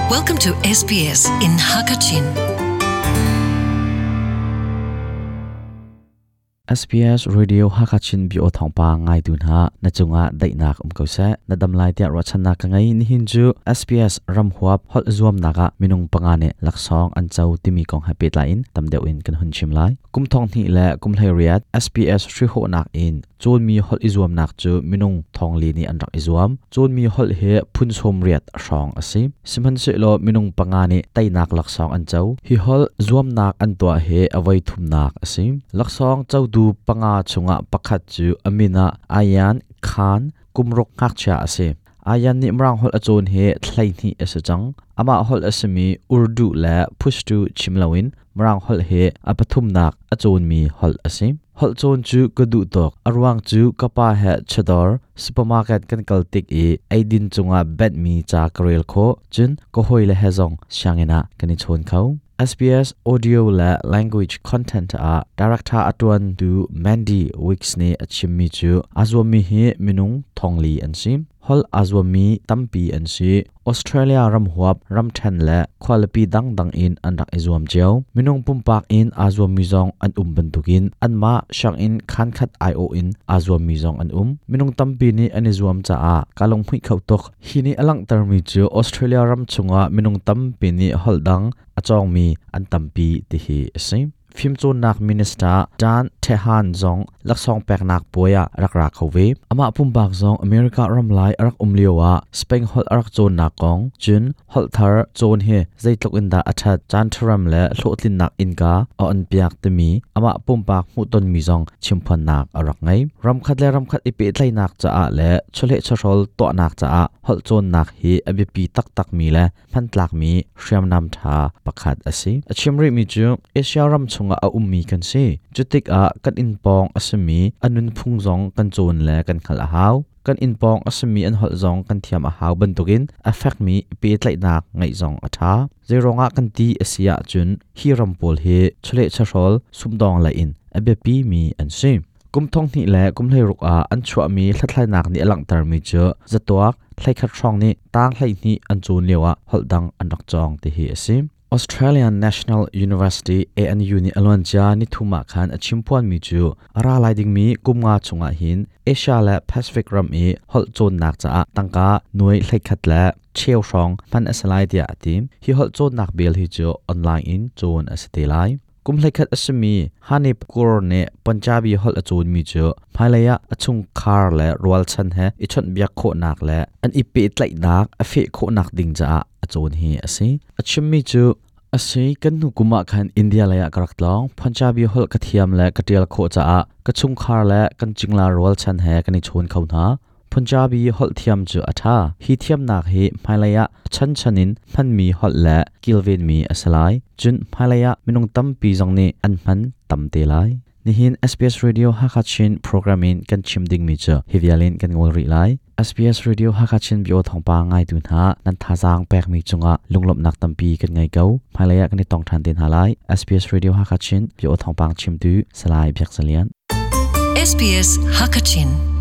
Welcome to SBS in Hakachin. SBS Radio Hakachin bio thawngpang ngaitu hna na cungah daihnak um ko seh. Na dam lai tiah ruahchannak ka ngei. Nihin cu SBS ramhuap holh zuamnak ah minung panga nih laksawng an co timi kong he pehtlai in tam deuh in kan hun chim lai. Kum thong hnih le kum 18 SBS hrihhawhnak in cawnmi holh i zuamnak cu minung thongli nih an rak i zuam. Cawnmi holh hi phun 80 hrawng a si. Sihmanhsehlaw minung panga nih teinak laksawng an co. Hi holh zuamnak an tuah hi a voi thumnak a si. Laksawng cotu panga chungah pakhat cu a min ah Ayan Khan kumruk ngakchia a si. Ayan nih Mirang holh a cawn hi 12 a si cang. Amah holh a simi Urdu le Pushtu chim loin Mirang holh hi a pathumnak a cawnmi holh a si. Holh cawn cu ka duh tuk. A ruang cu ka pa he chawdawr supermarket kan kal tik i eidin cungah benhmi ca ka rel khawh. Cun ka hawile he zong sianginn ah kan i chawn kho. SBS Audio le Language Content ah director a ṭuantu Mandy Wicks nih a chimmi cu aa zuammi hi minung thongli an si. Holh aa zuammi tampi an si. Australia ramhuap, ramṭhen le khualipi dangdang in an rak i zuam cio. Minung pumpak in aa zuammi zong an um bantukin anmah sianginn khankhat aiawh in aa zuammi zong an um. Minung tampi nih an i zuam caah kaa lunghmuih kho tuk. Hi nih a langhtermi cu Australia ram chungah minung tampi nih holh dang a cawngmi an tampi ti hi a si. Fimcawnnak Minister Dan Tehan zong laksawng peknak puai ah rak ra kho ve. Amah pumpak zong America ram lai a rak um lio ah Spain holh a rak cawnnak kong, cun holh thar cawn hi zeitluk in dah a ṭhat, caan ṭharam le hlawhtlinnak innka a onpiak timi amah pumpak hmuhtonmi zong chimphuannak a rak ngei. Ramkhat le ramkhat i pehtlaihnak caah le chawleh chawhrawl tuahnak caah holh cawnnak hi a biapi taktakmi le hmantlakmi hriamnam ṭha pakhat a si. A chim rihmi cu Asia ram chungah a ummi kan si. Cutikah kan inn pawng a simi a nunphung zong kan cawn le kan hngalh a hau. Kan inn pawng a simi an holh zong kan thiam a hau bantukin a fekmi pehtlaihnak ngeih zong a ṭha. Zeiruangah kan ti a si ahcun hi ram pawl hi chawleh chawhrawl sumdawng lei in a biapimi an si. Kum 2000 le kum 16 ah an chuahmi hlathlainak nih a langhtermi cu zatuak 11 hrawng nih tang 12 an cawn lioah holh dang an rak cawng ti hi a si. Australian National University ANU nih a luancia nithum ah khan a chimphuanmi cu a ra lai dingmi kum nga chungah hin Asia le Pacific ram i holh cawnnak caah tangka nuai 11 le cheu hrawng hman a si lai tiah a ti. Hi holh cawnnak bill hi cu online in cawn a si te lai. Kum 11 a simi Hanif Kaur nih Punjabi holh a cawnmi cu hmailei ah a chungkhar le rualchan he i chawnhbiak khawhnak le an i pehtlaihnak a feh khawhnak ding caah a cawn hi a si. A chimmi cu a si kan hnu kum ah khan India lei ah ka rak tlawng. Punjabi holh ka thiam le ka ṭial khawh caah ka chungkhar le kan cingla rualchan he kan i chawn kho hna. Punjabi holh thiam cu a ṭha. Hi thiamnak hi hmailei ah chanchan in hmanmi holh le kilvenmi a si lai. Cun hmailei ah minung tampi zong nih an hman tam te lai. Nihin SBS Radio Hakha Chin program in kan chim dingmi cu hi vial in kan ngol rih lai. SBS Radio Hakha Chin bio thawngpang ngaitu hna nan thazaang pekmi cungah lunglawmhnak tampi kan ngei ko. Hmailei ah kan i tong ṭhan te hna lai. SBS Radio Hakha Chin bio thawngpang chimtu Salai Biak Zalian. SBS Hakachin.